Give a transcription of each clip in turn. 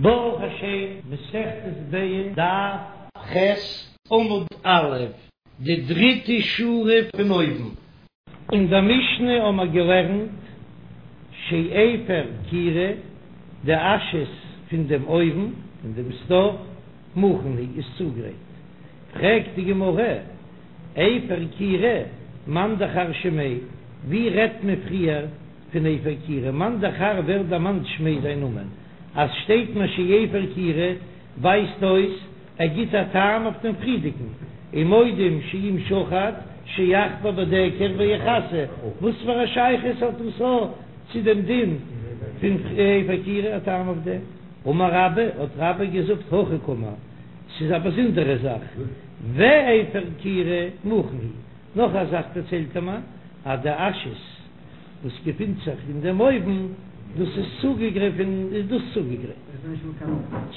ברוך השם, מסכת ביצה, דף ח', עמוד א', די דריטע שורה פון אויבן. אין דער משנה האמער געלערנט שאפר כירה, די אשעס פון דעם אויוון, פון דעם סטאוו, מוכן הוא, איז צוגרייט. פרעגט די גמרא, אפר כירה, מאן דכר שמיה, ווי רעדט מען פריער פון אפר כירה, מאן דכר ווער דערמאנט שמיה זיין נאמען? אז שטייט מיר שאפר כירה ווייזט אויס ער גיט א טעם אויף דעם פריערדיגן, ומודים שאם שחט שיחפור בדקר ויכסה, וואס פאר א שייכות האט דאס א צו דעם דין פון אפר כירה א טעם אויף דעם? אמר רבה, האט רבה געזאגט הכי קאמר, ס'איז א באזונדערע זאך, ואפר כירה מוכן הוא, נאך א זאך דערציילט ער מיר אז די אשעס וואס געפינט זיך אין דעם אויוון, דאס איז צוגעגרייט, איז דאס צוגעגרייט,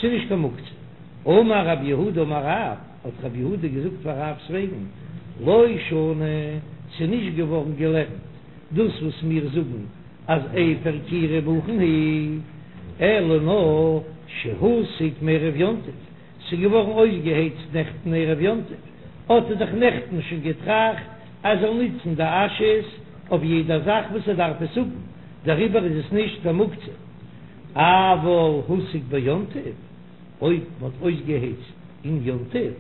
ס'איז נישט קיין מוקצה. אמר רב יהודה אמר רב, האט רב יהודה געזאגט פאר רב'ס וועגן, לא שנו, ס'איז נישט געווארן געלערנט דאס וואס מיר זאגן אז אפר כירה מוכן הוא, אלא נאר שהוסק מערב יום טוב, ס'איז געווארן אויסגעהייצט נעכטן ערב יום טוב, האט ער דאך נעכטן שוין געטראכט אז ער זאל נוצן די אשעס אויף יעדע זאך וואס ער דארף עס האבן, דעריבער איז עס נישט קיין מוקצה. אבל הוסק ביום טוב, אויב מ'האט אויסגעהייצט אין יום טוב,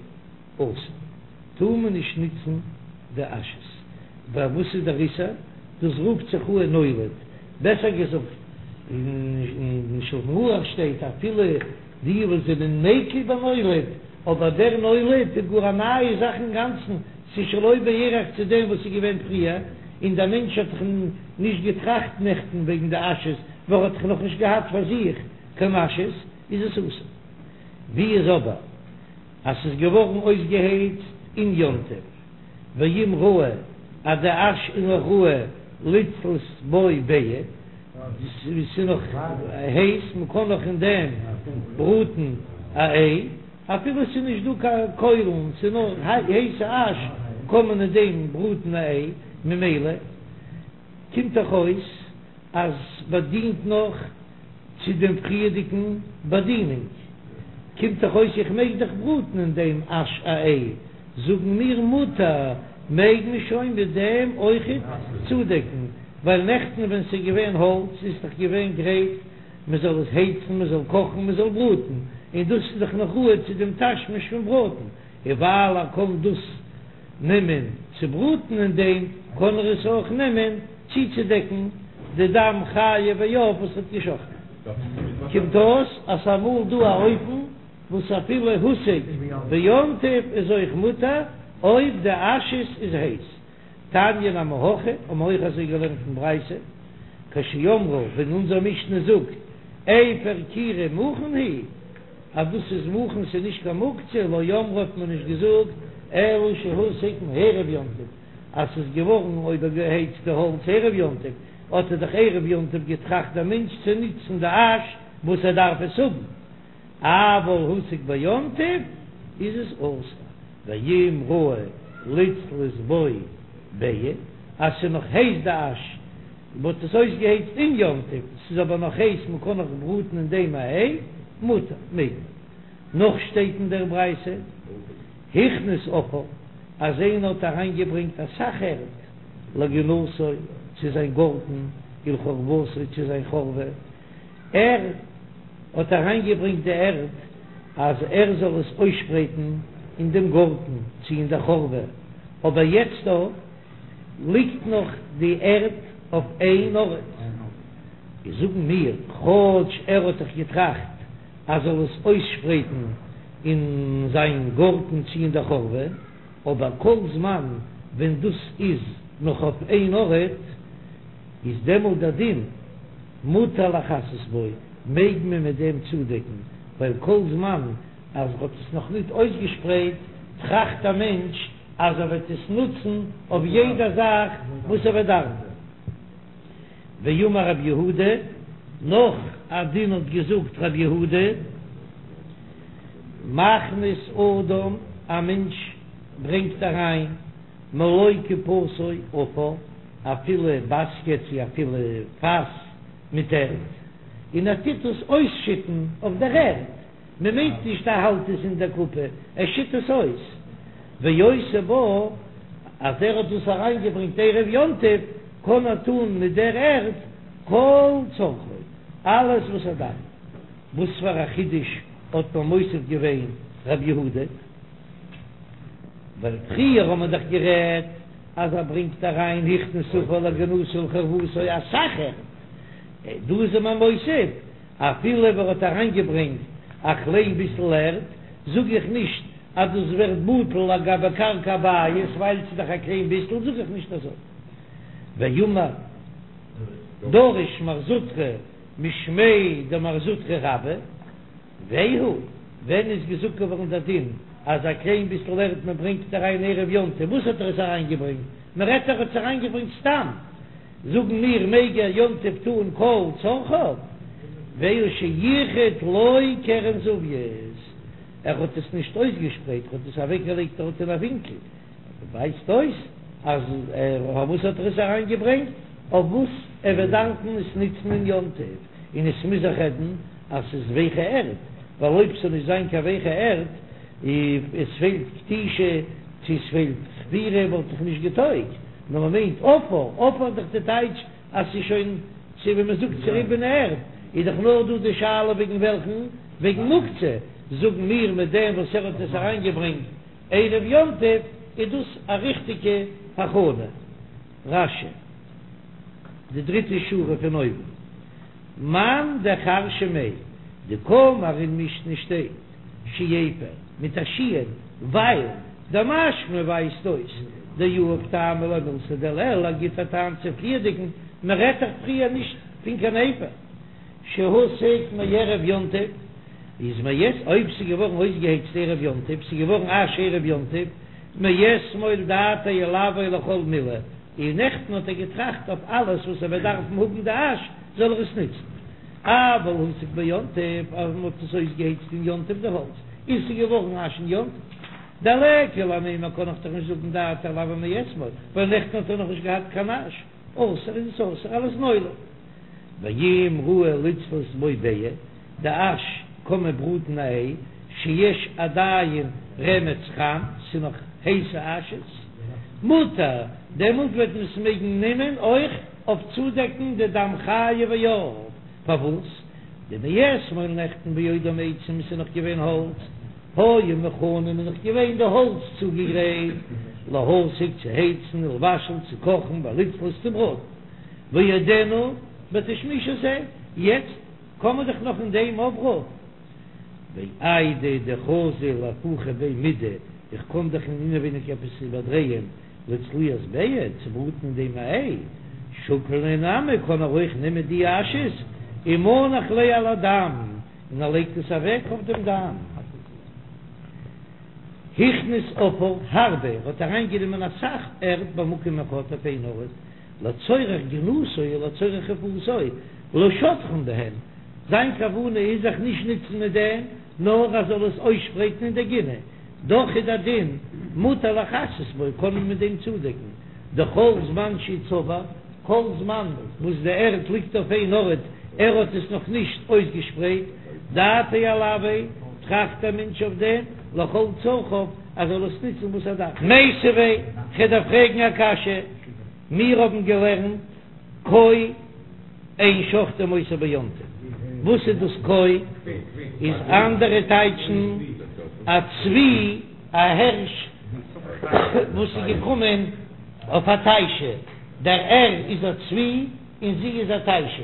אסור, טאר מען נישט נוצן די אשעס. ווייל וואס איז דער איסור? דאס רופט זיך אן נולד, בעסער געזאגט, אין שלחן ערוך שטייט אפילו די וואס זענען מקיל בנולד, אבער דער נולד איז גאר א נייע זאך אינגאנצן, ס'איז שלא בערך צו דעם וואס איז געווען פריער, און דער מענטש האט דאך נישט געטראכט נעכטן וועגן די אשעס, ווייל ער האט דאך נאכנישט געהאט פאר זיך קיין אשעס, איז עס אסור. ווי איז אבער אז ס'איז געווארן אויסגעהייצט אין יום טוב, ואם ראוי אז די אש איז נאך ראוי לצלות בו ביעא, ס'איז נאך הייס, מ'קען נאך אין דעם בראטן א איי, אפילו ס'איז נישט דא קיין קוילן, ס'איז נאר הייסע אש, קען מען אין דעם בראטן א איי, ממילא קומט דאך אויס אז ס'באדינט נאך צו דעם פריערדיגן באדינונג, קומט דאך אויס איך מעג דאך בראטן אין דעם אש א איי, זאגן מיר מותר, מעג מען שוין מיט דעם אויכעט צודעקן, ווייל נעכטן ווען ס'איז געווען האלץ איז דאך געווען גרייט מען זאל עס הייצן, מען זאל קאכן, מען זאל בראטן, און דאס איז דאך נאך ראוי צו דעם תשמיש פון בראטן, און ווייל ער קען דאס נעמען צו בראטן אין דעם, קען ער עס אויך נעמען צוצודעקן די דם חיה ועוף וואס האט געשאכטן. קומט אויס אז ס'איז אמאל דא א אופן וואס אפילו הוסק ביום טוב איז אויך מותר אויב די אשעס איז הייס. תניא נמי הכי, האבן מיר אויך אזוי געלערנט אין ברייתא, כשאמרו ווען אונזער משנה זאגט אפר כירה מוכן הוא, אז דאס איז מוכן ס'איז נישט קיין מוקצה, לא אמרו האט מען נישט געזאגט אלא שהוסק מערב יום טוב, אז ס'איז געווארן אויבערגעהייצט די האלץ ערב יום טוב, האט ער דאך ערב יום טוב געטראכט דער מענטש צו נוצן די אש וואס ער דארף עס האבן, אבל הוסק ביום טוב איז עס אסור, ואם ראוי לצלות בו ביעא, אז ס'איז נאך הייס די אש, מ'האט עס אויסגעהייצט אין יום טוב, ס'איז אבער נאך הייס מ'קען נאך בראטן אין דעם א איי, מותר, מעג מען. נאך שטייט אין דער ברייתא, הכניס עפר, אז איינער האט אריינגעברענגט אסאך ערד לגינתו צו זיין גארטן, ולחורבתו צו זיין חורבה, ער האט אריינגעברענגט די ערד אז ער זאל עס אויסשפרייטן אין דעם גארטן צו אין דער חורבה, אבער יעצט דא ליגט נאך די ערד אויף איין ארט, איז זאגן מיר, כאטש ער האט דאך געטראכט אז זאל עס אויסשפרייטן אין זיין גארטן צו אין דער חורבה, אבער כל זמן ווען דאס איז נאך אויף איין ארט, איז דעמאלט דער דין מותר לכסות בו, מעג מען מיט דעם צודעקן, ווייל כל זמן אז ער האט עס נאך ניט אויסגעשפרייט, טראכט א מענטש אז ער וועט עס נוצן אויף יעדע זאך וואס ער וועט דארפן. ואמר רב יהודה, נאך א דין האט געזאגט רב יהודה, מכניס אדם, א מענטש ברענגט אריין מלא קופתו עפר, א פילע באסקעט צי א פילע פאס מיט ערד. און ער טוט עס אויסשיטן אויף דער ערד, מען מיינט נישט ער האלט עס אין דער קופה, ער שיט עס אויס, ועושה בה, אז ער האט דאס אריינגעברענגט ערב יום טוב, קען ער טון מיט דער ערד כל צרכו, אלעס וואס ער דארף. וואס פאר א חידוש האט מען מוסיף געווען רב יהודה? ווייל פריער האט מען דאך גערעדט אז ער ברענגט אריין הכניס עפר לגינתו ולחורבתו אסאך ערד, דא איז מען מוסיף אפילו אויב ער האט אריינגעברענגט א קליין ביסל ערד, זאג איך נישט אז דאס ווערט בטל לגבי קרקע הבית ווייל ס'איז דאך א קליין ביסל, זאג איך נישט אזוי. ואמר דרש מר זוטרא משמיה דמר זוטרא רבה, והוא, ווען איז געזאגט געווארן דער דין אז א קליין ביסל ערד מען ברענגט אריין ערב יום טוב, וואס האט ער עס אריינגעברענגט? מען רעדט ער האט עס אריינגעברענגט סתם, זאגן מיר מעג ער יום טוב טון כל צרכיו, והוא שייחד לו קרן זווית, ער האט עס נישט אויסגעשפרייט, ער האט עס אוועקגעלייגט דארט אין א ווינקל, ווייזט אויס אז פארוואס האט ער עס אריין געברענגט? אויף וואס ער וועט דארפן עס נוצן אין יום טוב, און עס מוז זיך רעדן אז ס'איז ווייכע ערד, ווייל אויב ס'זאל נישט זיין קיין ווייכע ערד, עס פעלט כתישה צו עס פעלט חפירה וואלט דאך נישט געטויגט, נאר מ'מיינט עפר, עפר איז דאך די טייטש אז ס'איז שוין צו ווי מ'זאגט צוריבענע ערד, איז דאך נאר דא די שאלה וועגן וועלכן, וועגן מוקצה, זאגן מיר מיט דעם וואס ער האט עס אריין געברענגט ערב יום טוב איז דאס א ריכטיגע הכנה. רש"י, די דריטע שורה פון אויבן, מאן דכר שמיה, דקאמר אין משנה שטייט שאפר מיט א שין, ווייל דמשמע ווייזט אויס דיהיב טעמא למילתא דלעיל, ער גיט א טעם צו פריערדיגן, מען רעדט דאך פריער נישט פון קיין אפר. שהוסק מערב יום טוב, איז מאת אויב ס'איז געווארן אויסגעהייצט ערב יום טוב, ס'איז געווארן אש ערב יום טוב, מאתמול דעתיה עילויה לכל מילי, און נעכטן האט ער געטראכט אויף אלעס וואס ער וועט דארפן האבן די אש, זאל ער עס נוצן. אבל הוסק ביום טוב, אז מ'האט עס אויסגעהייצט אין יום טוב די האלץ, און ס'איז געווארן אש אין יום טוב. דליכא למימר קען איך דאך נישט זאגן דעתיה עילויה מאתמול, ווייל נעכטן האט ער נאכנישט געהאט קיין אש. אסור איז עס אסור אלס נולד. ואם ראוי לצלות בו ביעא, די אש קען מען בראטן א איי, שיש עדיין רמץ חם, ס'איז נאך הייסע אשעס, מותר, דעמאלט וועט מען עס מעגן נעמען אויך אויף צודעקן די דם חיה ועוף, פארוואס? דמאתמול נעכטן בעודם עצים ס'איז נאך געווען האלץ, היו מוכנים איז נאך געווען די האלץ צוגעגרייט להסיק צו הייצן ולבשל צו קאכן ולצלות צו בראטן, ועודנו בתשמיש הזה, יעצט קען מען דאך נאך אין דעם אפבראטן. ואיידי דחזי לאהפוכי ביה מידי, איך קען דאך אין אינעווייניג עפעס איבערדרייען לצליית ביעא, צו בראטן אין דעם א איי, שקיל להו נמי קען ער אויך נעמען די אשעס ומנח ליה על הדם, און ער לייגט עס אוועק אויף דעם דם. הכניס עפר הרבה, ער האט אריינגענומען אסאך ערד במקום אחד אויף איין ארט, לצורך גינתו ולצורך חורבתו, לשטחן בהן, זיין כוונה איז זיך נישט נוצן מיט דעם, נאר ער זאל עס אויסשפרייטן אין דער גינה, דאך איז דער דין מותר לכסות בו, קען מען מיט דעם צודעקן, דכל זמן שהוא צבור, כל זמן וואס די ערד ליגט אויף איין ארט, ער האט עס נאך נישט אויסגעשפרייט, דעתיה עילויה, טראכט דער מענטש אויף דעם, לכל צרכיו, ער זאל עס נוצן וואס ער דארף. מיתיבי, כ'דארף פרעגן א קשיא, מיר האבן געלערנט כוי אין שוחטין אותו ביום טוב, וואס איז דאס כוי? איז אנדערע טייטשן א צבי, א הערש וואס איז געקומען אויף א תיישה, דער ער איז א צבי און זי איז א תיישה.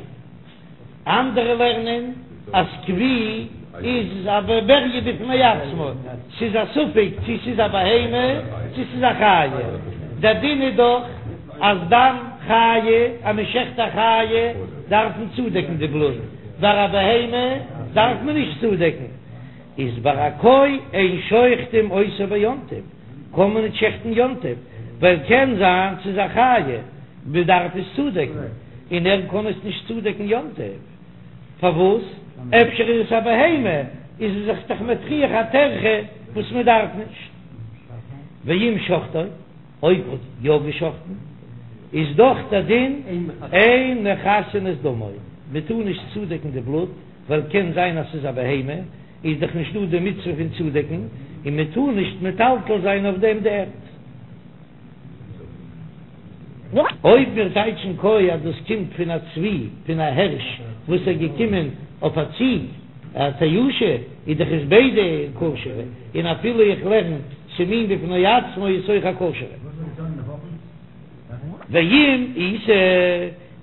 אנדערע לערנען אז כוי איז א בריה בפני עצמו, ס'איז א ספק צו ס'איז א בהמה צו ס'איז א חיה, דער דין איז דאך אז דם חיה, אז מען שעכט א חיה דארף מען צודעקן די בלוט, ביי א בהמה דארף מען נישט צודעקן, איז ביי א כוי אין שוחטין אותו ביום טוב, קען מען נישט שעכטן יום טוב, ווייל קען זיין ס'איז א חיה, מען דארף עס צודעקן, און ער קען עס נישט צודעקן יום טוב, פארוואס? אפשר איז עס א בהמה, איז ער זיך דאך מטריח א טרחה וואס מען דארף נישט. ואם שחטו, אויב האט יא געשחטן, איז דאך דער דין אין מכסין את דמו. מען טאר נישט צודעקן די בלוט, ווייל קען זיין אז ס'איז א בהמה, איז דאך נישט דא די מצוה פון צודעקן, און מען טאר נישט מטלטל זיין אויף דעם די ערד. אויב מיר טייטשן כוי אז דאס קומט פון א צבי, פון א הערש וואס איז געקומען אויף א ציג, א תיישא, איז דאך עס ביידע כשר'ע, און אפילו איך לערן ס'איז מין בפני עצמו איז אויך א כשר'ע. ואם איתא,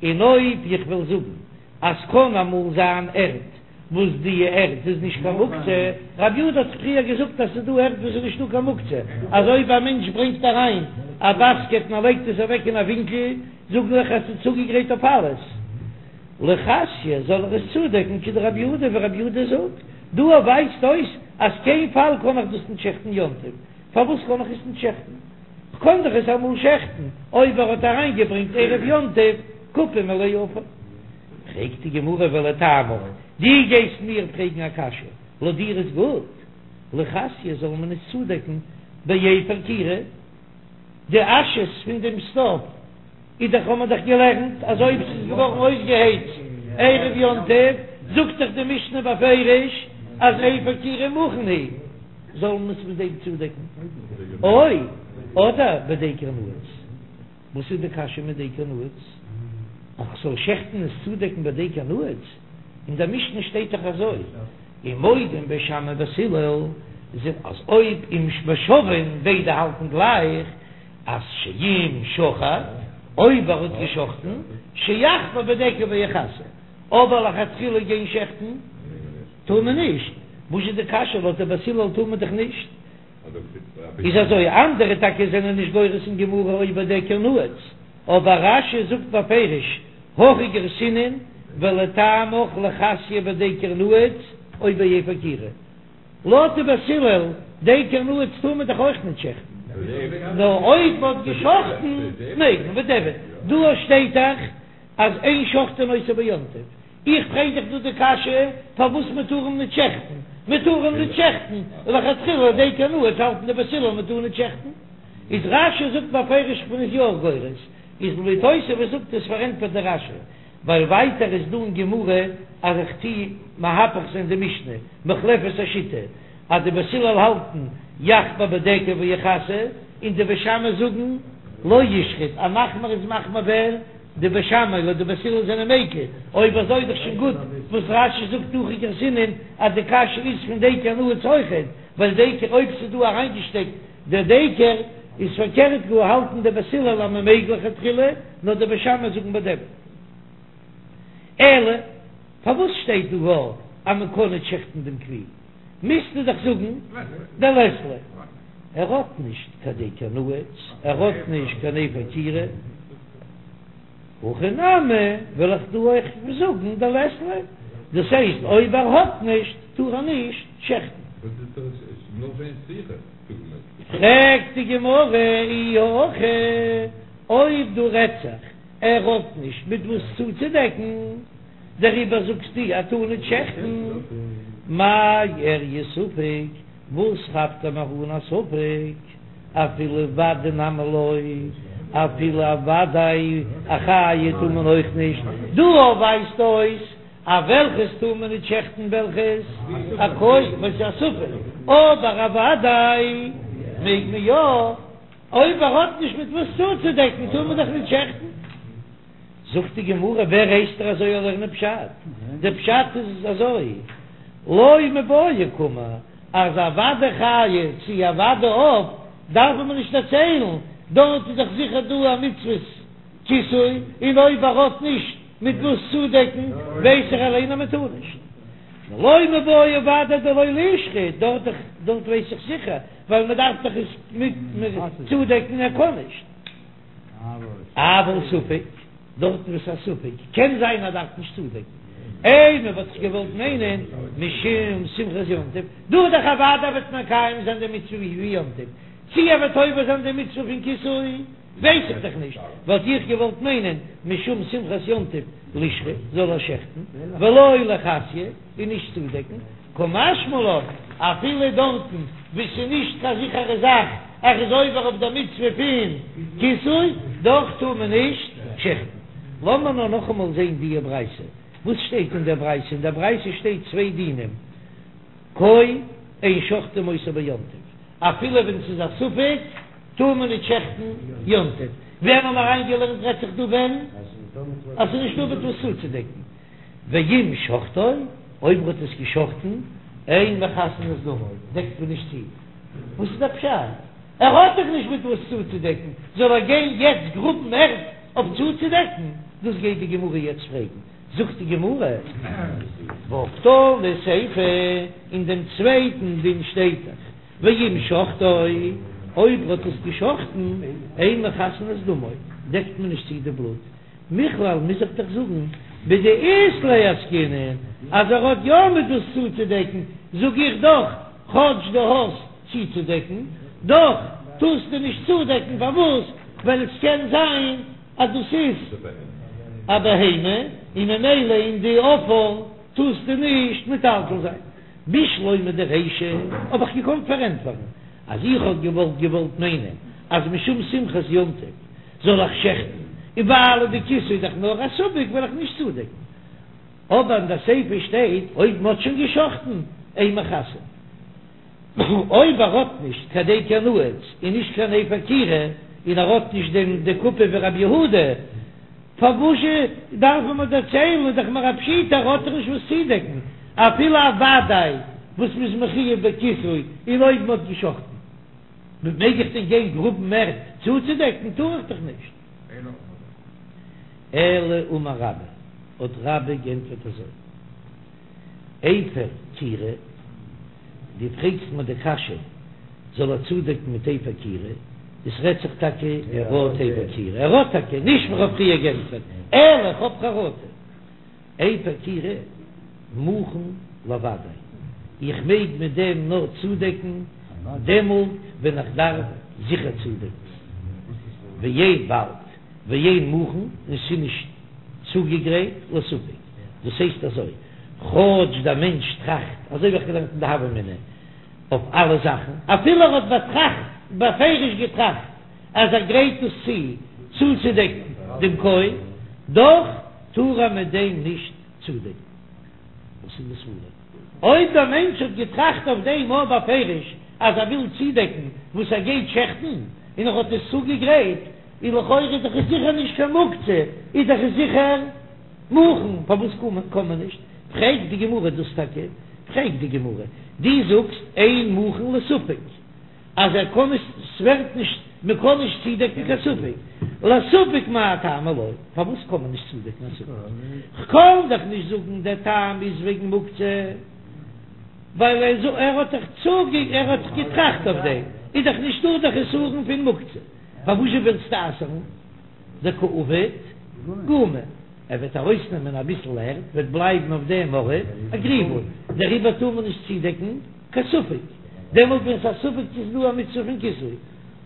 און אויב איך וועל זאגן אז קען אמאל זיין ערד וואס די ערד איז נישט קיין מוקצה, רב יהודה האט פריער געזאגט אז ס'איז דא ערד וואס איז נישטא קיין מוקצה, אז אויב א מענטש ברענגט אריין א באסקעט און ער לייגט עס אוועק אין א ווינקל, זאג איך אז ס'איז צוגעגרייט אויף אלעס. לכסויי זאל ער עס צודעקן כדרב יהודה ווי רב יהודה זאגט, דא ווייזט אויס אז קיין פאל קען איך דאס נישט שעכטן יום טוב, פארוואס קען איך עס נישט שעכטן? כ'קען דאך עס אמאל שעכטן אויב ער האט אריינגעברענגט ערב יום טוב קופה מלאה עפר. פרעגט די גמרא ולטעמיך, דו גייסט מיר פרעגן א קשיא, לויט דיר איז גוט, לכסויי זאל מען עס צודעקן באפר כירה, די אשעס פון דעם סטאוו איז דאך האט מען דאך געלערנט אז אויב ס'איז געווארן אויסגעהייצט ערב יום טוב, זאגט דאך די משנה בפירוש אז אפר כירה מוכן הוא, זאל מען עס מיט דעם צודעקן, או אדער בדקר נעוץ. וואס איז די קשיא מיט דקר נעוץ? אז כ'זאל שעכטן עס צודעקן בדקר נעוץ? אין דער משנה שטייט דאך אזוי, ומודים בית שמאי ובית הלל, אז אויב אם ושוין ביידע האלטן גלייך, אז שאם שחט, אויב ער האט געשחטן, שיחמיר בדקר ויכסה, אבער לכתחילה גיין שעכטן טאר מען נישט, וואס איז די קשיא לויט די בית הלל טאר מען דאך נישט? איז אזוי, אנדערע טאקע זענען נישט גורס אין גמרא או בדקר נעוץ, אבער רש"י זאגט בפירוש, הכי גרסינן ולטעמיך לכסויי בדקר נעוץ או באפר כירה. לויט די בית הלל, דקר נעוץ טאר מען דאך אויך נישט שעכטן, נאר אויב מען האט געשחטן מעג מען, בדיעבד דא שטייט דאך אז אין שוחטין אותו ביום טוב, איך פרעג דיך דא די קשיא פארוואס מען טאר אים נישט שעכטן, מען טאר אים נישט שעכטן לכתחילה דקר נעוץ האלטן די בית הלל מען טאר נישט שעכטן, איז רש"י זאגט בפירוש כ'בין עס יא גורס, איז לויט תוספות זאגט עס פארענטפערט די רש"י, ווייל ווייטער איז דא אין גמרא אז איך טוה מהפך זיין די משנה, מוחלפת השיטה, אז די בית הלל האלטן יחמיר בדקר ויכסה, און די בית שמאי זאגן לא ישחוט, א מחמיר איז מחמיר ווער? די בית שמאי לויט די בית הלל זענען מיקל, אויב אזוי איז דאך שוין גוט וואס רש"י זאגט הכי גרסינן אז די קשיא איז פון דקר נעוץ אויכעט, ווייל דקר אויב ס'איז דא אריינגעשטעקט דער דקר איז פארקערט גאר האלטן די בית הלל אז מ'מעג לכתחילה, נאר די בית שמאי זאגן בדיעבד. אלא פארוואס שטייט דא גאר אז מ'קען נישט שעכטן דעם כוי? מוזטו דאך זאגן דלית ליה. ער האט נישט קיין דקר נעוץ, ער האט נישט קיין אפר כירה. הכא נמי וועל איך דא אויך זאגן דלית ליה, דאס הייסט אויב ער האט נישט טאר ער נישט שעכטן. פרעגט די גמרא אי הכי, אויב דא רעדט זיך ער האט נישט מיט וואס צוצודעקן, דעריבער זאגסטו ער טאר נישט שעכטן, מאי איריא ספק, וואס כאפט ער מיר אן א ספק, אפילו ודאי נמי לא, אפילו א ודאי א חיה טאר מען אויך נישט, דא ווייזט אויס אז וועלכעס טאר מען נישט שעכטן וועלכעס א כוי וואס איז א ספק, אבער א ודאי מעג מען יא, אויב ער האט נישט מיט וואס צוצודעקן טאר מען דאך נישט שעכטן. זאגט די גמרא, ווער הייסט דיר אזוי לערנען פשט? דער פשט איז אזוי, לא מיבעיא קאמר, אז א ודאי חיה צו א ודאי עוף דארף מען נישט דערציילן, דארט איז דאך זיכער דא א מצוות כיסוי, און אויב ער האט נישט מיט וואס צודעקן ווייס איך אליין אז מען טאר נישט. לא מיבעיא ודאי דלא לישחוט, דארט דארט ווייס איך זיכער, ווייל מען דארף דאך עס מיט צודעקן ער קען נישט. אבל ספק, דארטן וואס א ספק, קען זיין אז דארף נישט צודעקן, אימא וואלט איך געוואלט מיינען משום שמחת יום טוב, דא איז דאך אוודאי וועט מקיים זיין די מצוה ווי יום טוב, צי ער וועט עובר זיין די מצוה פון כיסוי ווייס איך דאך נישט, וואלט איך געוואלט מיינען משום שמחת יום טוב לישחוט, זאל ער שעכטן, ולא לכסויי, און נישט צודעקן. קא משמע לן, אפילו דארטן וואו ס'איז נישט קיין זיכערע זאך ער איז עובר אויף דער מצוה פון כיסוי, דאך טאר מען נישט שעכטן. לאמיר נאר נאכאמאל זען דיע ברייתא. וואס שטייט אין דער ברייתא? אין דער ברייתא שטייט צוויי דינים, כוי אין שוחטין אותו ביום טוב, אפילו ווען ס'איז א ספק טאר מען נישט שעכטן יום טוב. ווען האבן מיר אריינגעלערנט רעדט זיך דא ווען אז ס'איז נישטא מיט וואס צוצודעקן. ואם שחטו, אויב מ'האט עס געשחטן, אין מכסין את דמו, דעקט מען נישט צו. וואס איז דער פשט? ער האט דאך נישט מיט וואס צוצודעקן, זאל ער גיין יעצט גראבן ערד אויף צוצודעקן? דאס גייט די גמרא יעצט פרעגן. זאגט די גמרא, והא קתני סיפא, אין דעם צווייטן דין שטייט דאך, ואם שחטו, אויב ער האט עס געשחטן, אין מכסין את דמו, דעקט מען נישט צו די בלוט. מכלל מוז איך דאך זאגן בדאית ליה עסקינן אז ער האט יא מיט וואס צוצודעקן, זאג איך דאך כאטש דו האסט צוצודעקן, דאך טארסטו נישט צודעקן, פארוואס? ווייל עס קען זיין אז דאס איז א בהמה און ממילא אין די עפר טארסטו נישט מטלטל זיין. בשלמא דרישא האב איך געקאנט פארענטפערן אז איך האב געוואלט געוואלט מיינען אז משום שמחת יום טוב זאל איך שעכטן, און ווייל די כיסוי איז דאך נאר א ספק וועל איך נישט צודעקן. אבער אין די סיפא שטייט אויב מ'האט שוין געשחטן אין מכסין. אויב ער האט נישט קיין דקר נעוץ און נישט קיין אפר כירה און ער האט נישט דעם די קופה ווי רבי יהודה, פארוואזשע דארף מען מיר דערציילן איז דאך מיר א פשיטא ער האט דאך נישט וואס צודעקן אפילו א וודאי וואס מ'איז מחויב בכיסוי און אויב מ'האט געשחטן. מעג איך דען גיין גראבן ערד צוצודעקן? טאר איך דאך נישט. אלא אמר רבה, האט רבה גענטפערט אזוי, אפר כירה, דו פרעגסט מיר די קשיא, זאל ער צודעקן מיט אפר כירה, עס רעדט זיך טאקע ער האט אפר כירה, ער האט טאקע, נישט ווי כ'האב פריער גענטפערט, אלא כ'האב חרטה. אפר כירה מוכן לוודאי, איך מעג מיט דעם נאר צודעקן דעמאלט ווען איך דארף זיכער צודעקן, ואין באלד ואין מוכן און ס'איז נישט צוגעגרייט לספק, דאס הייסט אזוי, כאטש דער מענטש טראכט, אזוי ווי איך געלערנט אין די הוה אמינא אויף אלע זאכן, אפילו ער האט באטראכט בפירוש געטראכט אז ער גרייט עס צו צוצודעקן דעם כוי, דאך טאר ער מיט דעם נישט צודעקן. וואס איז די סברא? אויב דער מענטש האט געטראכט אויף דעם אויך בפירוש אז ער וויל צודעקן וואס ער גייט שעכטן, און ער האט עס צוגעגרייט, איז לכאורה איז דאך עס זיכער נישט קיין מוקצה, איז דאך עס זיכער מוכן, פארוואס קען מען נישט? פרעגט די גמרא דאס טאקע, פרעגט די גמרא, דו זאגסט אין מוכן לספק. אז ער קען נישט, ס'ווערט נישט, מ'קען נישט צודעקן קיין ספק, לספק מאי טעמא לא, פארוואס קען מען נישט צודעקן א ספק? כ'קען דאך נישט זאגן דער טעם איז וועגן מוקצה, ווייל ער האט דאך צוגע ער האט דאך געטראכט אויף דעם, איז דאך נישטא דער חסרון פון מוקצה, פארוואזשע ווילסטו אסר'ן? דקא עביד גומא, ער וועט ארויסנעמען אביסל ערד, וועט בלייבן אויף דעם ארט א גריבל, דעריבער טאר מען נישט צודעקן קיין ספק, דעמאלט ווען ס'איז א ספק צו ס'איז דא א מצוה פון כיסוי,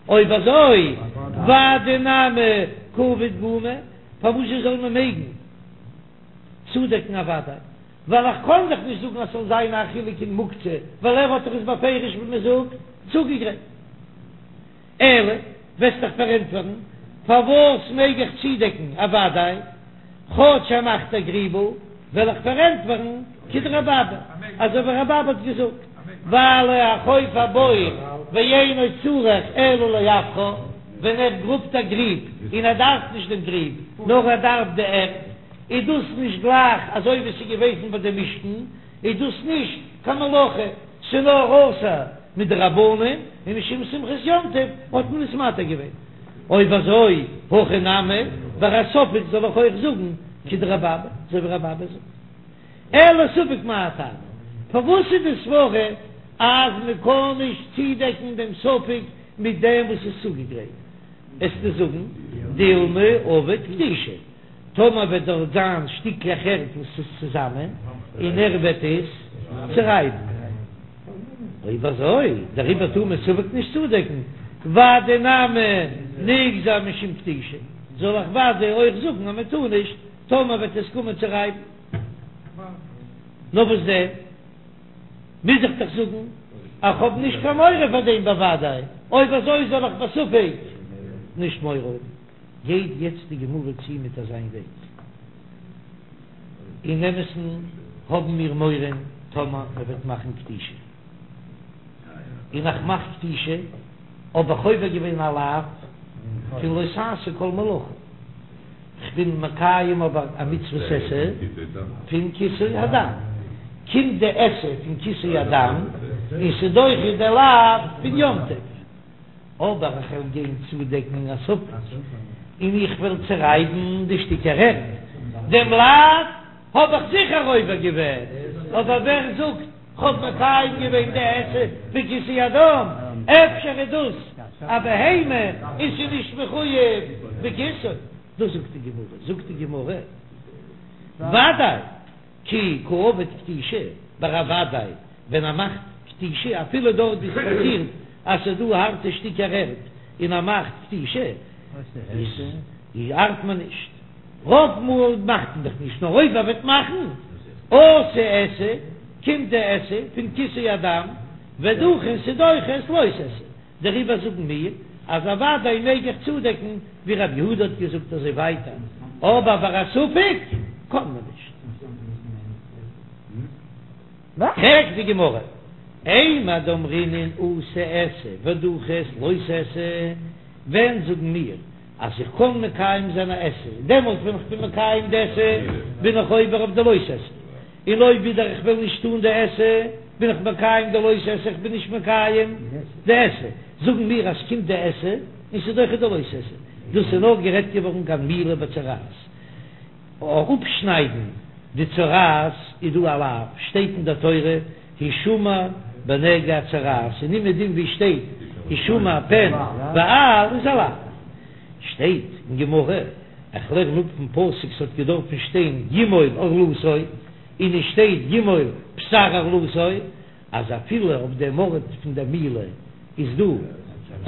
אויב אזוי ודאי נמי קא עביד גומא, פארוואזשע זאל מען מעגן צודעקן א ודאי, ווייל איך קען דאך נישט זאגן אז ס'זאל זיין א חילוק אין מוקצה, ווייל ער האט דאך עס בפירוש ווי מ'זאגט צוגעגרייט. אלא, וועסט דאך פארענטפערן, פארוואס מעג איך צודעקן א ודאי, כאטש ער מאכט א גריבל, וועל איך פארענטפערן כדרבי אבא, אזוי ווי רבי אבא האט געזאגט, ווייל החופר בור ואינו צריך אלא לעפרה, ווען ער גראבט א גריב און ער דארף נישט דעם גריב, נאר ער דארף די ערד, איז דאס נישט גלייך אזוי ווי ס'איז געוועזן ביי די משכן, איז דאס נישט קיין מלאכה, ס'איז נאר אסור מדרבנן, און משום שמחת יום טוב האט מען עס מתיר געווען. אויב אזוי, הכא נמי, ביי א ספק זאל איך אויך זאגן כדרבי אבא, אזוי ווי רבי אבא זאגט. אלא ספק מאי טעמא, פארוואס איז די סברא אז מען קען נישט צודעקן דעם ספק מיט דעם וואס איז צוגעגרייט? עסטו זאגן דילמא עביד כתישא. טאמער וועט דארט זיין שטיקלעך ערד וואס איז צוזאמען און ער וועט עס צורייבן. אויב אזוי דעריבער טאר מען ספק נישט צודעקן, ודאי נמי ניגזור משום כתישה, זאל איך ודאי אויך זאגן אז מען טאר נישט טאמער וועט עס קומען צו רייבן. נאר וואס דען מוז איך דאך זאגן אז כ'האב נישט קיין מורא פאר דעם בוודאי, אויב אזוי זאל איך בספק נישט מורא האבן. גייט יעצט די גמרא צו מיט אזיין וועג. אין אמת'ן האבן מיר מורא טאמער מען וועט מאכן כתישה, און איך מאך כתישה האב איך עובר געווען א לאו פון לא תעשה כל מלאכה, כ'בין מקיים אבער א מצוות עשה פון כיסוי הדם, קומט די עשה פון כיסוי הדם און ס'דוחה די לאו פון יום טוב. אבער איך וועל גיין צודעקן אין א ספק, און איך וועל צערייבן די שטיקער ערד, דעם לאו האב איך זיכער עובר געווען, אבער ווער זאגט כ'האב מקיים געווען די עשה פון כיסוי הדם, אפשר איז דאס א בהמה און ס'איז נישט מחויב בכיסוי, דאס זאגט די גמרא, זאגט די גמרא, ודאי. כי קא עביד כתישה, ביי א ודאי ווען ער מאכט כתישה אפילו דארט ווי ס'פאסירט אז ס'איז דא הארטע שטיקער ערד און ער מאכט כתישה איז ארט מען נישט, רוב מאל מאכט מען דאך נישט נאר אויב ער וועט מאכן אתי עשה קומט די עשה פון כיסוי הדם ודחי און ס'דוחה את לא תעשה. דעריבער זאגן מיר אז אוודאי מעג איך צודעקן ווי רב יהודה האט געזאגט אזוי ווייטער, אבער ביי א ספק קען מען נישט. פרעגט די גמרא, אימר דאמרינן אתי עשה ודחי את לא תעשה, ווען זאגן מיר אז איך קען מקיים זיין א עשה, דעמאלט ווען איך בין מקיים די עשה בין איך עובר אויף די לא תעשה, און אויב ווידער איך וועל נישט טון די עשה, בין איך מקיים די לא תעשה, איך בין נישט מקיים די עשה. זאגן מיר אז ס'קומט די עשה און ס'איז דוחה די לא תעשה. דאס איז נאר גערעדט געווארן כגון מילה בצרעת. אראפשניידן די צרעת איז דא א לאו, שטייט אין דער תורה הישמר בנגע הצרעת, און אומעדום ווי שטייט הישמר פן ואל איז א לאו. שטייט אין גמרא, איך לערן אפ פון פסוק ס'האט געדארפן שטיין ימול ערלתו, און עס שטייט ימול בשר ערלתו, אז אפילו אויף דעם ארט פון דער מילה איז דא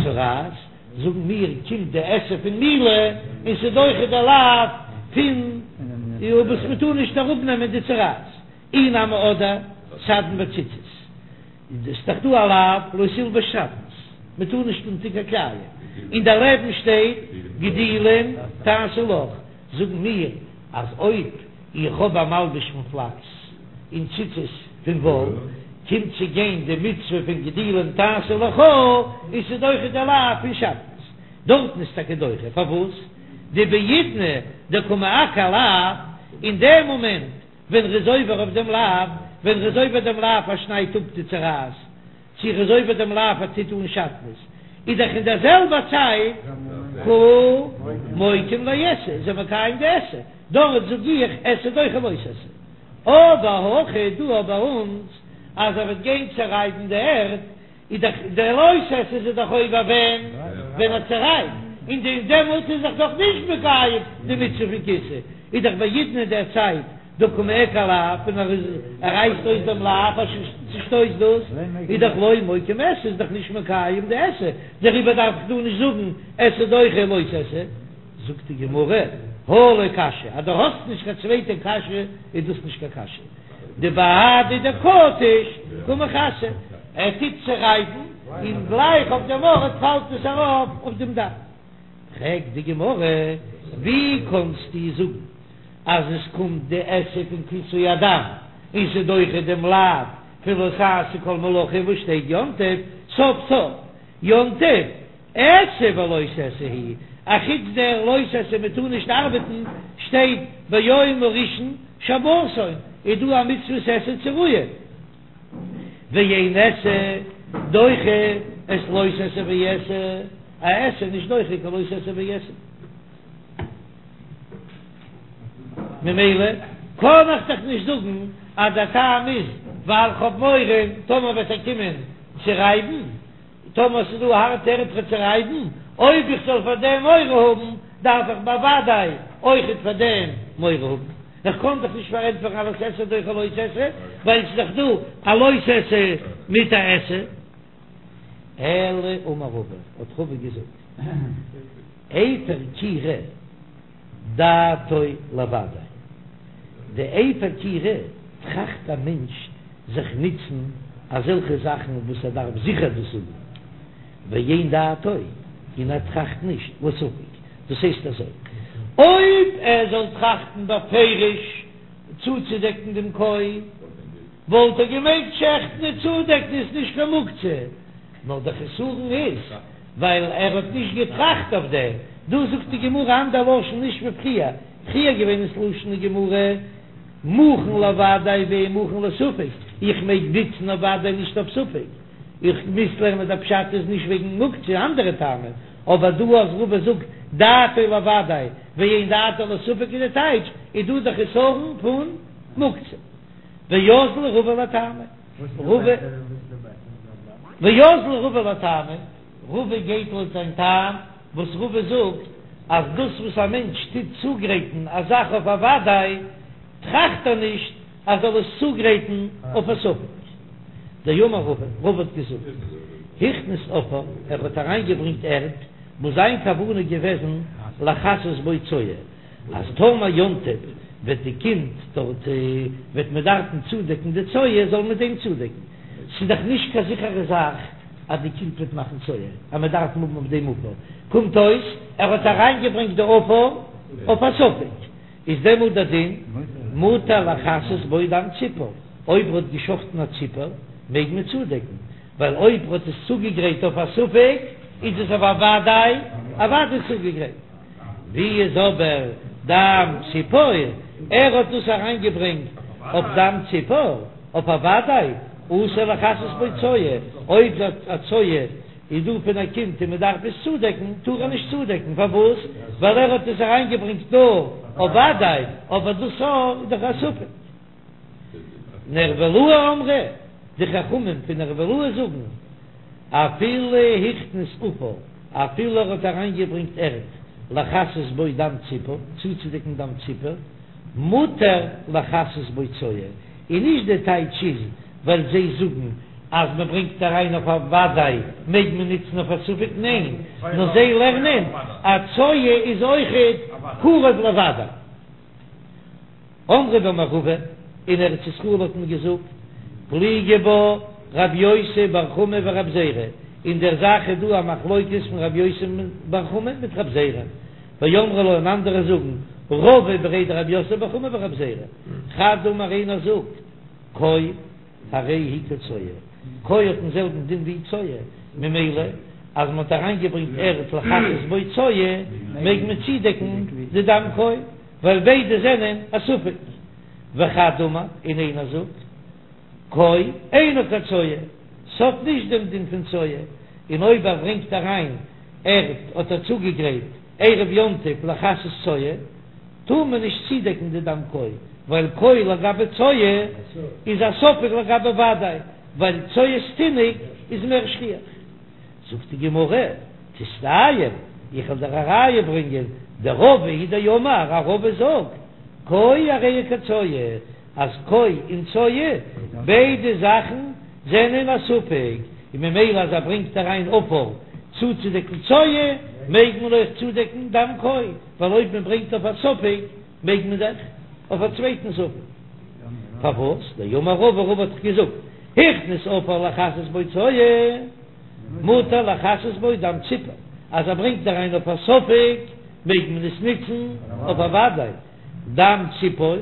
צרעת, זאגן מיר קומט די עשה פון מילה און ס'איז דוחה די לאו פון וואס מ'טאר נישט אראפנעמען די צרעת, אי נמי אדער סדין וציצית. איז דאך דא א לאו לא תלבש שעטנז, מען טאר נישט אנטון קיין כלאים, און דערלעבן שטייט גדילים תעשה לך, זאגן מיר אז אויב איך האב א מלבוש פון פלאקס און ציצית פון וואל, קומט צו גיין די מצוה פון גדילים תעשה לך, און ס'איז דוחה די לאו פון שעטנז, דארטן איז טאקע דוחה, פארוואס? דבעידנא דקא מעקר לאו, אין דעם מאמענט ווען ר'איז עובר אויף דעם לאו, ווען ר'איז עובר דעם לאו ער שניידט אפ די צרעת, צו ר'איז עובר דעם לאו ער טוט אן שעטנז, איז דאך אין דער זעלבער צייט קא מוקים לעשה, איז ער מקיים די עשה, דארט זאג איך עשה דוחה לא תעשה. אבער הכא דא ביי אונז אז ער וועט גיין צערייבן די ערד, איז דאך דער לא תעשה איז ער דאך עובר ווען ווען ער צערייבט, און די דעמאלט איז ער דאך נישט מקיים די מצוה פון כיסוי, איז דאך בעידנא אין דער צייט דקא מעקר לאו, און ער איז ער רייסט אויס דעם לאו ער צושטויסט דאס, איז דאך לא מוקים עשה איז דאך נישט מקיים די עשה, דעריבער דארף איך דא נישט זאגן עשה דוחה לא תעשה. זאגט די גמרא, הא לא קשיא, אז דו האסט נישט קיין צווייטע קשיא איז דאס נישט קיין קשיא. דבהדי דקטיש קא מכסי, ער טוט צערייבן און גלייך אויף דעם ארט פאלט עס ארויף אויף דעם דם. פרעגט די גמרא, ווי קאנסטו זאגן אז עס קומט די עשה פון כיסוי הדם און ס'איז דוחה דעם לאו פון לא תעשה כל מלאכה וואס שטייט יום טוב סוף סוף יום טוב עשה ולא תעשה הוא, אחוץ דער לא תעשה מען טאר נישט ארבעטן, שטייט ביום הראשון שבתון, איז דא א מצוות עשה צו רוען, ואין עשה דוחה את לא תעשה ועשה, א עשה נישט דוחה קיין לא תעשה ועשה. ממילא קען איך דאך נישט זאגן אז דער טעם איז ווייל כ'האב מורא טאמער וועט ער קומען צו רייבן, טאמער ס'איז דא הארטע ערד צו צערייבן, אויב איך זאל פאר דעם מורא האבן, דארף איך בוודאי אויכעט פאר דעם מורא האבן. איך קען דאך נישט פארענטפערן אז עשה דוחה לא תעשה, ווייל ס'איז דאך דא א לא תעשה מיט א עשה. אלא אמר רבא, האט רבא געזאגט, אפר כירה. דעתו לוודאי. די אפר כירה טראכט א מענטש זיך נוצן אזעלכע זאכן וואס ער דארף זיכער דאס האבן, ואין דעתו, און ער טראכט נישט לספק, דאס הייסט אזוי, אויב ער זאל טראכטן בפירוש. צוצודעקן דעם כוי, וואלט ער געמעגט שעכטן און צודעקן איז נישט קיין מוקצה, נאר דער חסרון איז ווייל ער האט נישט געטראכט אויף דעם, דא זאגט די גמרא אנדער לשון נישט ווי פריער, פריער געווען איז לשון די גמרא מוכן לוודאי ואין מוכן לספק, איך מעג ניצן אויף וודאי נישט אויף ספק, איך מוז לערנען דער פשט איז נישט וועגן מוקצה אנדערע טעמים, אבער דא אז רבא זאגט דעתו לוודאי ואין דעתו לספק איז די טייטש איז דא די חסרון פון מוקצה. ואזיל רבא לטעמיה, רבא, ואזיל רבא לטעמיה, רבא גייט לויט זיין טעם, וואס רבא זאגט אז דאס וואס א מענטש טוט צוגרייטן א זאך אויף א וודאי, טראכט ער נישט אז זאל עס צוגרייטן אויף א ספק. דאמר רבא, רבא האט געזאגט, הכניס עפר, ער האט אריינגעברענגט ערד, וואס זיין כוונה געוועזן לכסות בו צואה, אז טאמער יום טוב וועט די קינד דארט וועט מען דארפן צודעקן די צואה זאל מען דעם צודעקן, ס'איז דאך נישט קיין זיכערע זאך אז די קינד וועט מאכן צואה אז מען דארף האבן אויף דעם עפר, קומט אויס ער האט אריינגעברענגט די עפר אויף א ספק, איז דעמאלט דער דין מותר לכסות בו דם ציפור, אויב ער האט געשחטן א ציפור מעג מען צודעקן, ווייל אויב ער האט עס צוגעגרייט אויף א ספק איז עס אויף א וודאי א וודאי צוגעגרייט. ווי איז אבער דם ציפור? ער האט דאס אריינגעברענגט אויף דם ציפור, אויף א וודאי, אסור לכסות בו צואה, אויב א צואה איז דא פון א קינד און מען דארף עס צודעקן, טאר ער נישט צודעקן, פארוואס? ווייל ער האט עס אריינגעברענגט נאר אויף וודאי, אבער דאס איז דאך א ספק. נהרבלאי אמרי, די חכמים פון נהרבלאי זאגן, אפילו הכניס עפר, אפילו ער האט אריינגעברענגט ערד, לכסות בו דם ציפור, צוצודעקן דם ציפור, מותר לכסות בו צואה, און נישט די טייטש איז ווייל זיי זאגן אז מען ברענגט אריין אויף א וודאי מעג מען נוצן אויף א ספק, ניין, נאר זיי לערנען אז צואה איז אויכעט קרוב לוודאי. אמרי במערבא, אין ארץ ישראל האט מען געזאגט, פליגי בה רב יוסי בר חמא ורב זירא, אין דער זאך איז דא א מחלוקת פון רב יוסי בר חמא מיט רב זירא, ואמרי לה און אנדערע זאגן, רבא בריה דרב יוסף בר חמא ורב זירא, חד אמר איינער זאגט, כוי הרי היא כצואה, כוי האט דעם זעלבן דין ווי צואה, ממילא אז מען האט אריינגעברענגט ערד לכסות בו צואה, מעג מען צודעקן די דם כוי. ווייל ביידע זענען א ספק. וחד אמר, און איינער זאגט, כוי אינה כצואה, ס'האט נישט דעם דין פון צואה, און אויב ער ברענגט אריין ערד האט ער צוגעגרייט ערב יום טוב לכסות צואה, טאר מען נישט צודעקן די דם כוי, ווייל כוי לגבי צואה איז א ספק לגבי וודאי, ווייל צואת תינוק איז מער שכיח. זאגט די גמרא, תסתיים, איך וועל דיר א ראיה ברענגען, דרבא הוא דאמר, אז רבא זאגט, כוי הרי היא כצואה, אז כוי און צואה, ביידע זאכן זענען א ספק, און ממילא אז ער ברענגט אריין עפר צוצודעקן צואה, מעג מען אויך צודעקן דם כוי, ווייל אויב מען ברענגט אויף א ספק, מעג מען דאך אויף א צווייטן ספק. פארוואס? דאמר רבא, רבא האט דאך געזאגט, הכניס עפר לכסות בו צואה, מותר לכסות בו דם ציפור, אז ער ברענגט אריין אויף א ספק מעג מען עס נוצן אויף א וודאי, דם ציפור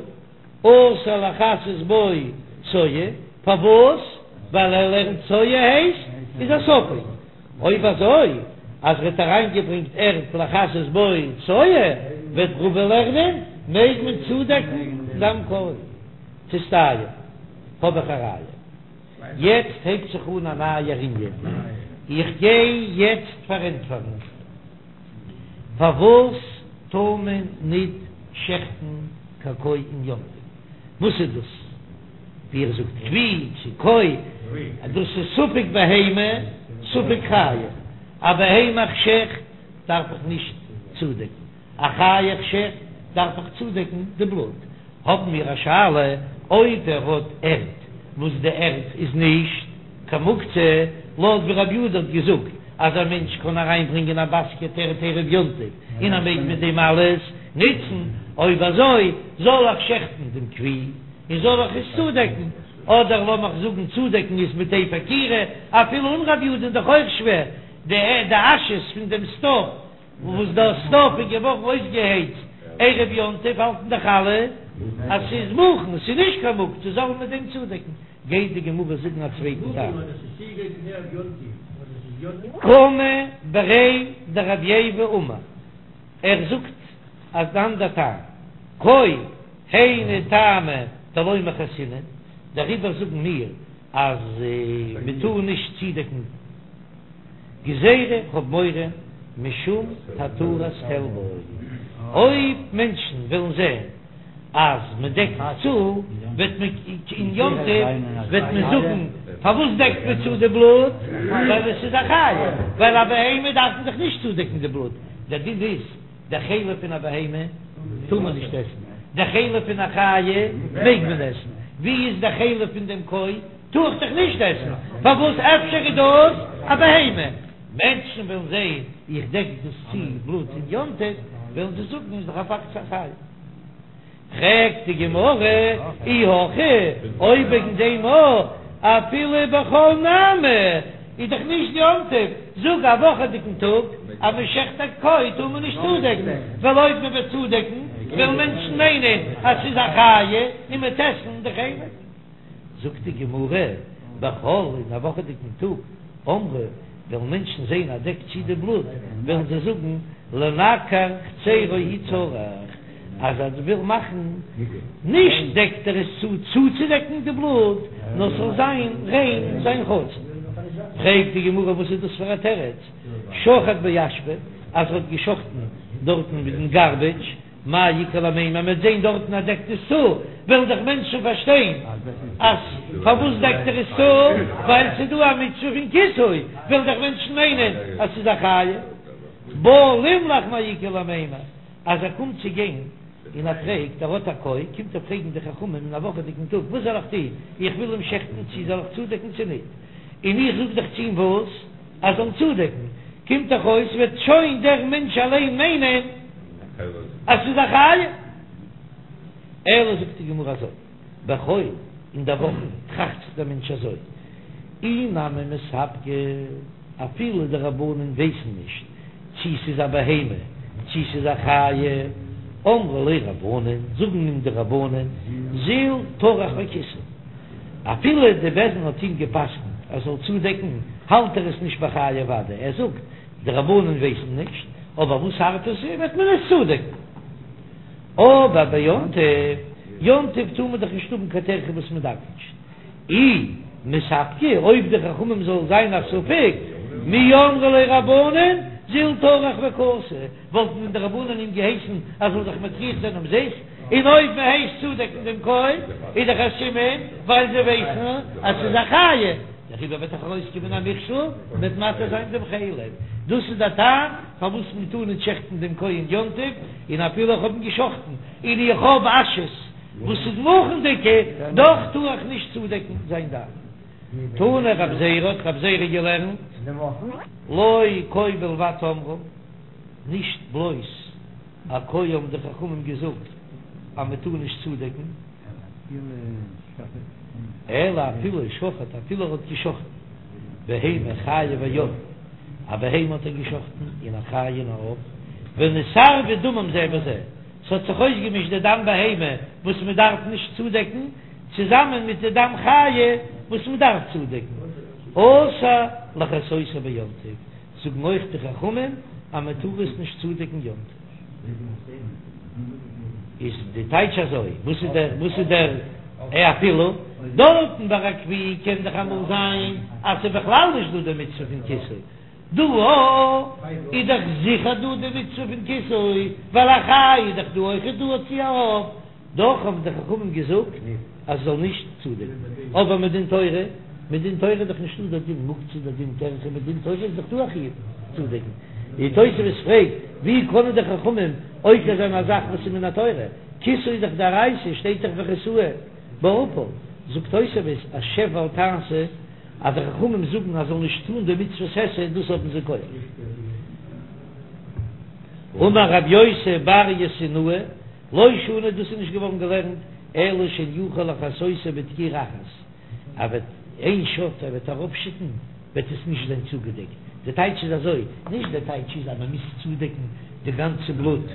אסור לכסות בו צואה, פארוואס? ווייל ער לערנט צואה הייסט איז א ספק, אויב אזוי אז ער האט אריינגעברענגט ערד לכסות בו צואה וועט רבא לערנען מעג מען צודעקן דם כוי. תסתיים, האב איך א ראיה. יעצט הייבט זיך אן א נייער ענין, איך גיי יעצט פארענטפערן פארוואס טאר מען ניט שעכטן קיין כוי אין יום טוב, וואס איז דאס ווי איר זאגט כוי צו כוי, דאס איז ספק בהמה ספק חיה, א בהמה איך שעכט דארף איך נישט צודעקן, א חיה איך שעכט דארף איך צודעקן די בלוט, האבן מיר א שאלה אויב ער האט ערד וואס די ערד איז נישט קיין מוקצה, לויט ווי רבי יהודה האט געזאגט אז א מענטש קען אריין ברענגען א באסקעט ערד ערב יום טוב און ער מעג מיט דעם אלעס נוצן, אויב אזוי זאל איך שעכטן דעם כוי און זאל איך עס צודעקן, אדער לאמיך זאגן צודעקן איז מיט אפר כירה, אפילו אן רבי יהודה איז דאך אויך שווער, די אשעס פון דעם סטאוו. וואס דער סטאוו איז געווארן אויסגעהייצט ערב יום טוב האלטן דאך אלע. אז ס'איז מוכן, ס'איז נישט קיין מוקצה, זאל מען מיט דעם צודעקן. גייט די גמרא זאגן א צווייטן טעם. קמא בריה דרב ייבא אמר, ער זאגט אן אנדער טעם, כוי היינו טעמא דלא מכסינן, דעריבער זאגן מיר אז מען טאר נישט צודעקן גזירה, כ'האב מורא משום התרת חלבו, אויב מענטשן וועלן זען אז מען דעקט צו, וועט מען אין יום טוב וועט מען זאגן פארוואס דעקט מען צו די בלוט, ווייל עס איז א חיה, ווייל א בהמה דארף מען דאך נישט צודעקן די בלוט, דער דין איז די חלב פון א בהמה טאר מען נישט עסן, די חלב פון א חיה מעג מען עסן, ווי איז די חלב פון דעם כוי? טאר איך דאך נישט עסן, פארוואס אפשר איז דאס א בהמה? מענטשן וועלן זען איך דעק דאס צו בלוט אין יום טוב, וועלן זיי זאגן איז דאך א פאקט ס'איז א חיה. פרעגט די גמרא, אי הכי, אויב וועגן דעם אויך, אפילו בחול נמי, איז דאך נישט יום טוב, זאג א וואכעדיגן טאג אז מען שעכט א כוי טאר מען נישט צודעקן, ווייל אויב מען וועט צודעקן וועלן מענטשן מיינען אז ס'איז א חיה און מ'וועט עסן די חלב. זאגט די גמרא, בחול אין א וואכעדיגן טאג, אמרי, וועלן מענטשן זען אז דעקט צו די בלוט, וועלן זיי זאגן, לנקר חצירו הוא צריך, אז ער וויל מאכן, נישט דעקט ער עס צו צוצודעקן די בלוט, נאר ס'זאל זיין ריין זיין חצר. פרעגט די גמרא וואס איז דאס פאר א תירוץ, שחט באשפה, אז ער האט געשחטן דארטן מיט דעם גארבעדזש, מאי איכא למימר, מ'וועט זען דארטן אז דעקט עס צו, וועלן דאך מענטשן פארשטיין אז פארוואס דעקט ער עס צו, ווייל ס'איז דא א מצוה פון כיסוי, וועלן דאך מענטשן מיינען אז ס'איז א חיה. בא לימלך מאי איכא למימר, אז ער קומט צו גיין און ער פרעגט, ער האט א כוי, קומט ער פרעגן די חכמים אין א וואכעדיגן טאג, וואס זאל איך טון, איך וויל אים שעכטן, צי זאל איך צודעקן צו ניט, און איך זאג דאך צו אים וואס? אז זאל צודעקן, קומט דאך אויס וועט שוין דער מענטש אליין מיינען אז ס'איז א חיה. אלא זאגט די גמרא אזוי, בחול אין דער וואכן טראכט זיך דער מענטש אזוי, אי נמי מספקא, אפילו די רבנן ווייסן נישט צי ס'איז א בהמה צי ס'איז א חיה, אמרי ליה רבנן, זאגן אים די רבנן, זיל טרח וכיסי. אפילו די בית דין האט אים גע'פסק'נט ער זאל צודעקן, האלט ער עס נישט ביי חיה ודאי, ער זאגט, די רבנן ווייסן נישט, אבער וואס הארט עס איז, וועט מען עס צודעקן. אבער ביום טוב, יום טוב טאר מען דאך נישט האבן קיין טרחה וואס מען דארף נישט. אי מספקא, אויב די חכמים זאל זיין א ספק, מי אמרי ליה רבנן, זיל טרח וכסי, וואלטן דען די רבנן אים געהייסן ער זאל זיך מטריח זיין אומזיסט? און אויב מען הייסט צודעקן דעם כוי איז דאך א סימן ווייל זיי ווייסן אז ס'איז א חיה, דעריבער וועט דאך ארויסקומען א מכשול מ'וועט מתיר זיין דעם חלב. דאס איז דער טעם פארוואס מען טאר נישט שעכטן דעם כוי אין יום טוב, און אפילו איך האב אים געשאכטן און איך האב אשעס וואס איז מוכנ'דיגע, דאך טאר איך נישט צודעקן זיין דם. תנא רב זירא האט רב זירא געלערנט, לא כוי בלבד אמרו, נישט בלויז א כוי האבן די חכמים געזאגט אז מען טאר נישט צודעקן, אלא אפילו שחט, אפילו ער האט געשחטן בהמה חיה ועוף, א בהמה האט ער געשחטן און א חיה און א עוף, ונתערבו דמם זה בזה, ס'האט זיך אויסגעמישט די דם בהמה וואס מען דארף נישט צודעקן, צוזאמען מיט די דם חיה וואס מען דארף צודעקן, אסור לכסותו ביום טוב, זאגן אויך די חכמים אז מען טאר עס נישט צודעקן יום טוב. איז די טייטש אזוי, וואס איז דער וואס איז דער אפילו? דארטן ביי א גוי קען דאך אמאל זיין אז ס'איז בכלל נישט דא די מצוה פון כיסוי, דא איז דאך זיכער דא די מצוה פון כיסוי, ווייל א חיה איז דאך דא אויכעט דא צו א עוף, דאך האבן די חכמים געזאגט אז ס'זאל נישט צודעקן, אבער מדין תורה, מדין תורה איז דאך נישטא דער דין מוקצה דער דין טרחה, מדין תורה איז דאך דא א חיוב צודעקן, די תוספות פרעגט, ווי קענען די חכמים עוקר זיין א זאך וואס איז מן התורה, כיסוי איז דאך דאורייתא, שטייט דאך וכסהו בעפר, זאגט תוספות אז שב ואל תעשה, אז די חכמים זאגן אז זאל נישט טון די מצוות עשה, דאס האבן זיי כח. אמר רב יוסי בר יאסיניא, לא שנו, דאס איז נישט געווארן געלערנט אלא שאינו יכול לכסותו בדקירה אחת, ער וועט איין שאט ער וועט אראפשיטן וועט עס נישט זיין צוגעדעקט, די טייטש איז אזוי, נישט די טייטש איז אז מען מוז צודעקן די גאנצע בלוט.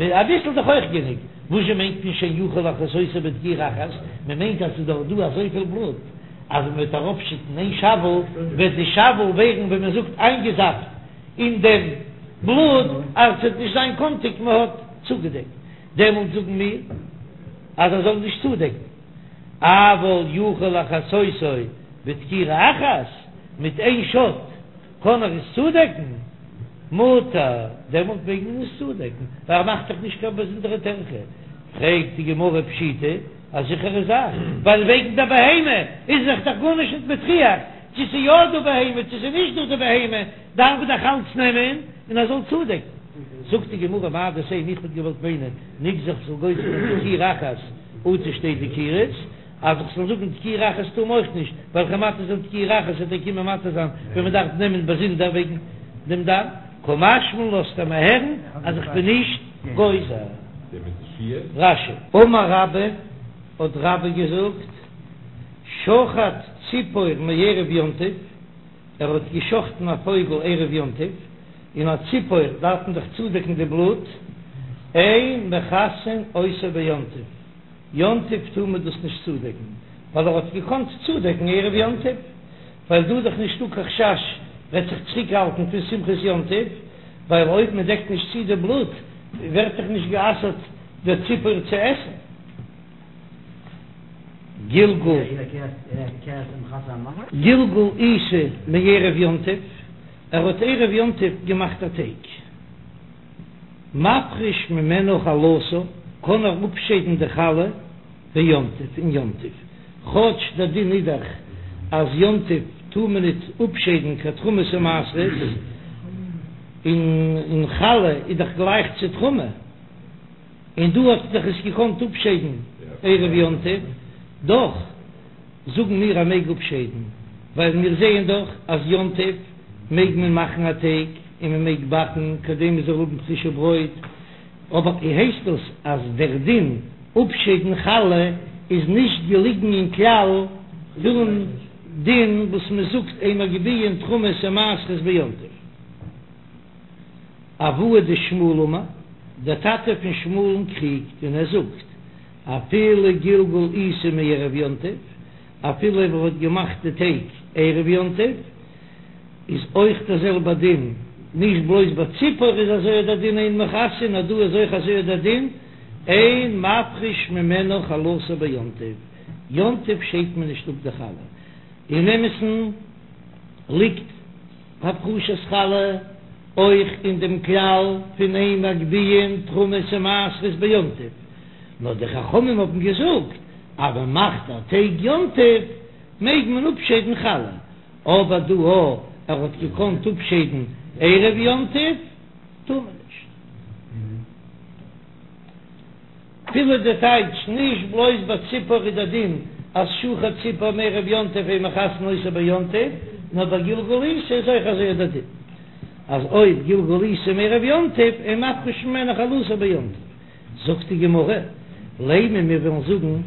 אביסל איז דאך אויך גענוג, וואזשע מיינט מען שאין יכול לכסותו בדקירה אחת, מען מיינט אז ס'איז דאך דא אזויפיל בלוט אז מען וועט אראפשיטן איין שאוול וועט די שאוול ווערן ווי מען זאגט איינגעזאפט אין דעם בלוט אז ס'וועט נישט זיין קאנטיג מען האט צוגעדעקט, דעמאלט זאגן מיר אז ער זאל נישט צודעקן, אבל יכול לכסותו בדקירה אחת, מיט איין שאט קען ער עס צודעקן, מותר, דעמאלט מעג מען עס צודעקן, ווייל ער מאכט דאך נישט קיין באזונדערע טרחה. פרעגט די גמרא פשיטא, א זיכערע זאך, ווייל וועגן דער בהמה איז זיך דאך גארנישט נישט מטריח, צו ס'איז יא דא בהמה צו ס'איז נישט דא די בהמה, דארף מען דאך אלץ נעמען און ער זאל צודעקן. זאגט די גמרא מהו דתימא, איך וואלט געוואלט מיינען, נגזור כ'זאל גוזר זיין דקירה אחת אטו שתי דקירות, אז איך זאל זאגן דקירה אחת טאר מען אויך נישט, ווייל כ'וועל מתיר זיין דקירה אחת וועט ער קומען מתיר זיין ווען מען דארף נעמען באזונדער וועגן דעם דם, קא משמע לן לאזט ער מיר הערן אז איך בין נישט גוזר. רש"י. אמר רבה, האט רבה געזאגט, שחט ציפור מערב יום טוב, ער האט געשחטן א פויגל ערב יום טוב, און א ציפור דארף מען דאך צודעקן די בלוט, אין מכסין אותו ביום טוב. יום טוב טאר מען דאס נישט צודעקן, ווייל ער האט געקאנט צודעקן ערב יום טוב, ווייל דא איז דאך נישטא קיין חשש וועט זיך צוריקהאלטן פון שמחת יום טוב, ווייל אויב מען דעקט נישט צו די בלוט ווערט דאך נישט גע'אסר'ט דער ציפור צו עסן. גלגל גלגל עיסה מערב יום טוב, ער האט ערב יום טוב געמאכט א טייג. מפריש ממנה חלתה, קען ער אפשיידן די חלה ביום טוב אין יום טוב, כאטש דער דין איז דאך אז יום טוב טאר מען ניט אפשיידן קיין תרומות ומעשרות, און חלה איז דאך גלייך צו תרומה, און דא האט ער דאך עס געקאנט אפשיידן ערב יום טוב, דאך. זאגן מיר ער מעג אפשיידן, ווייל מיר זעען דאך אז יום טוב מעג מען מאכן א טייג און מען מעג באקן כדי מען זאל האבן פרישע ברויט, אבער הייסט דאס אז דער דין אפשיידן חלה איז נישט געליגן אין כלל פון דין וואס מען זאגט אין מגביהין תרומות ומעשרות ביום טוב. אבוה דשמואל אמר, דער טאטע פון שמואל'ן קריגט און ער זאגט, אפילו גלגל עיסה מערב יום טוב, אפילו אויב ער האט געמאכט די טייג ערב יום טוב, איז אויך דער זעלבער דין, נישט בלויז ביי ציפור איז אזוי דער דין אין מכסין, נאר דא איז אויך אזוי דער דין אין מפריש ממנה חלתה ביום טוב, יום טוב שיידט מען נישט אפ די חלה, אין אמת'ן ליגט הפרשת חלה אויך אין דעם כלל פון אין מגביהין תרומות ומעשרות ביום טוב, נאר די חכמים האבן געזאגט אז מען מאכט א טייג יום טוב מעג מען אפשיידן חלה, אבער דא אויב ער האט געקאנט אפשיידן ערב יום טוב טאר מען נישט. אפילו די טייטש, נישט בלויז ביי ציפור איז דער דין אז שחט ציפור מערב יום טוב אין מכסין אותה ביום טוב, נאר ביי גלגול עיסה איז אויך אזוי דער דין אז אויב גלגול עיסה מערב יום טוב אין מפריש ממנה חלתה ביום טוב. זאגט די גמרא, לימא מיר וועלן זאגן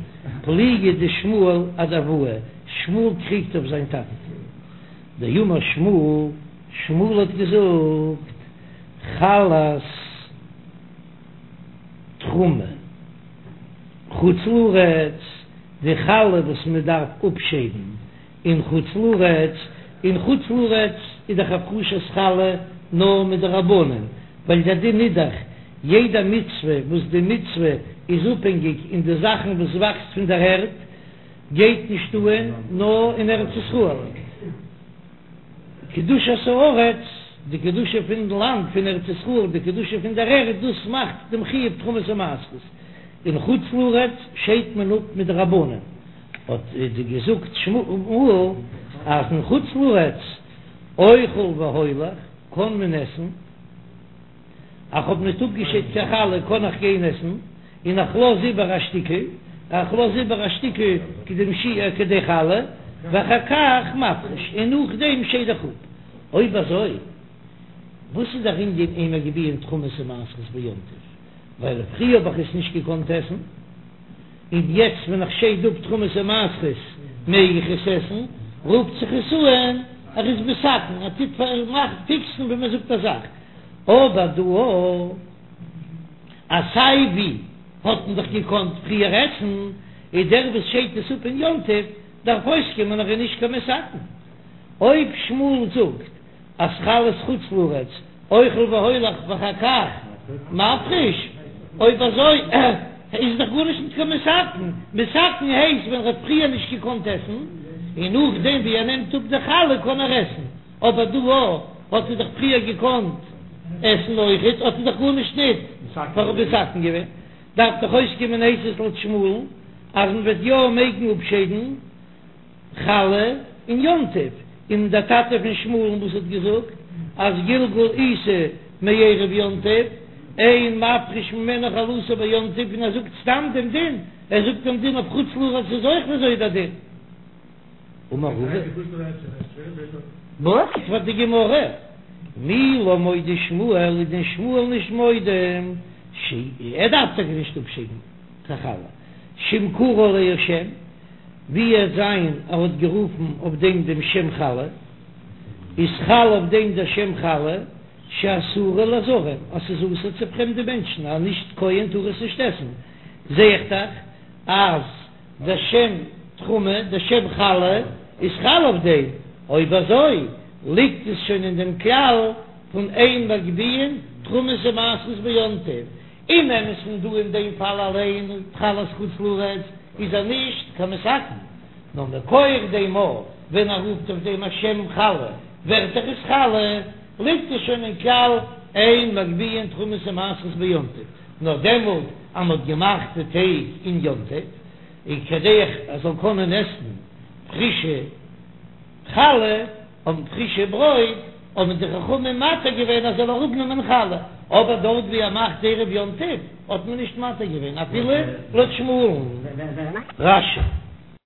פליגא דשמואל אדאבוה, שמואל קריגט אויף זיין טאטן, דאמר שמואל, שמואל האט געזאגט חלת תרומה חוץ לארץ, די חלה וואס מען דארף אפשיידן אין חוץ לארץ, אין חוץ לארץ איז דאך הפרשת חלה נאר מדרבנן, ווייל דער דין איז דאך יעדע מצוה וואס די מצוה איז אפהענגיק אין די זאכן וואס וואקסט פון דער ערד גייט נישט אהן נאר אין ארץ ישראל. קדושת הארץ, די קדושה פון לאנד פון ארץ ישראל, די קדושה פון דער ערד, דאס מאכט דעם חיוב תרומות ומעשרות. אין חוץ לארץ שיידט מען אפ מדרבנן, האט געזאגט שמואל אז אין חוץ לארץ אוכל והולך קען מען עסן, איך האב ניט אפגעשיידט קיין חלה קען איך גיין עסן, און איך לאז איבער א שטיקל, איך לאז איבער א שטיקל כדי שיעור כדי חלה, ואחר כך מפריש, און נאכדעם שייד איך אפ. אויב אזוי, וואס איז דער ענין אין מגביהין תרומות ומעשרות ביום טוב? ווייל פריער האב איך עס נישט געקאנט עסן, און יעצט ווען איך שייד אפ תרומות ומעשרות מעג איך עס עסן, רופט זיך עס אן ער איז מתקן, ער טוט פארמאכן, פיקסן ווי מען זאגט א זאך, אבער דא. אז סיי ווי האט מען דאך געקאנט פריער עסן, איז דער וואס שיידט עס אפ אין יום טוב דארף אויסקומען ער איז נישט קיין מתקן. אויב שמואל זאגט אז חלת חוץ לארץ אוכל והולך ואחר כך מפריש, אויב אזוי איז דאך גארנישט נישט קיין מתקן, מתקן הייסט ווען ער האט פריער נישט געקאנט עסן, און נאכדעם ווי ער נעמט אפ די חלה קען ער עסן, אבער דא האט ער דאך פריער געקאנט עסן אויכעט, האט ער דאך גארנישט ניט מתקן געווען, דארף דאך אויסקומען הייסט עס לויט שמואל'ן אז מען וועט יא מעגן אפשיידן. חלה אין יום טוב, און דער טאטע פון שמואל'ן וואס האט געזאגט אז גלגול עיסה מערב יום טוב, אין מפריש ממנה חלתה ביום טוב, און ער זאגט סתם דעם דין, ער זאגט דעם דין אויף חוץ לארץ איז אויך אזוי דער דין. אמר רבא. ענטפערט די גמרא, מי לא מודה שמואל איז דען שמואל נישט מודה ש ער דארף טאקע נישט אפשיידן קיין חלה שאם קרא עליה שם ווי עס זיין ער האט גערופן אויף דעם דעם שם חלה, איז חל אויף דעם דער שם חלה שאסורה לזרים, אז ס'איז אסור צו פרעמדע מענטשן, א נישט כהן טאר עס נישט עסן, זע איך דאך אז דער שם תרומה, דער שם חלה, איז חל אויף דעם, אויב אזוי ליגט עס שוין אין דעם כלל פון אין מגביהין תרומות ומעשרות ביום טוב, אין אמת'ן דא אין דעם פאל אליין חלת חוץ לארץ איז ער נישט קיין מתקן, נאר מכח דעם ווען ער רופט אויף דעם א שם חלה ווערט דאך עס חלה, ליגט עס שוין אין כלל אין מגביהין תרומות ומעשרות ביום טוב, נאר דעמאלט אז מ'האט געמאכט די טייג אין יום טוב, און כדי ער זאל קענען עסן פרישע חלה. האבן פרישע ברויט, האבן די חכמים מתיר געווען אז זאל אראפנעמען חלה, אבער דארט ווי ער מאכט ערב יום טוב האט מען נישט מתיר געווען אפילו לויט שמואל'ן. רש"י.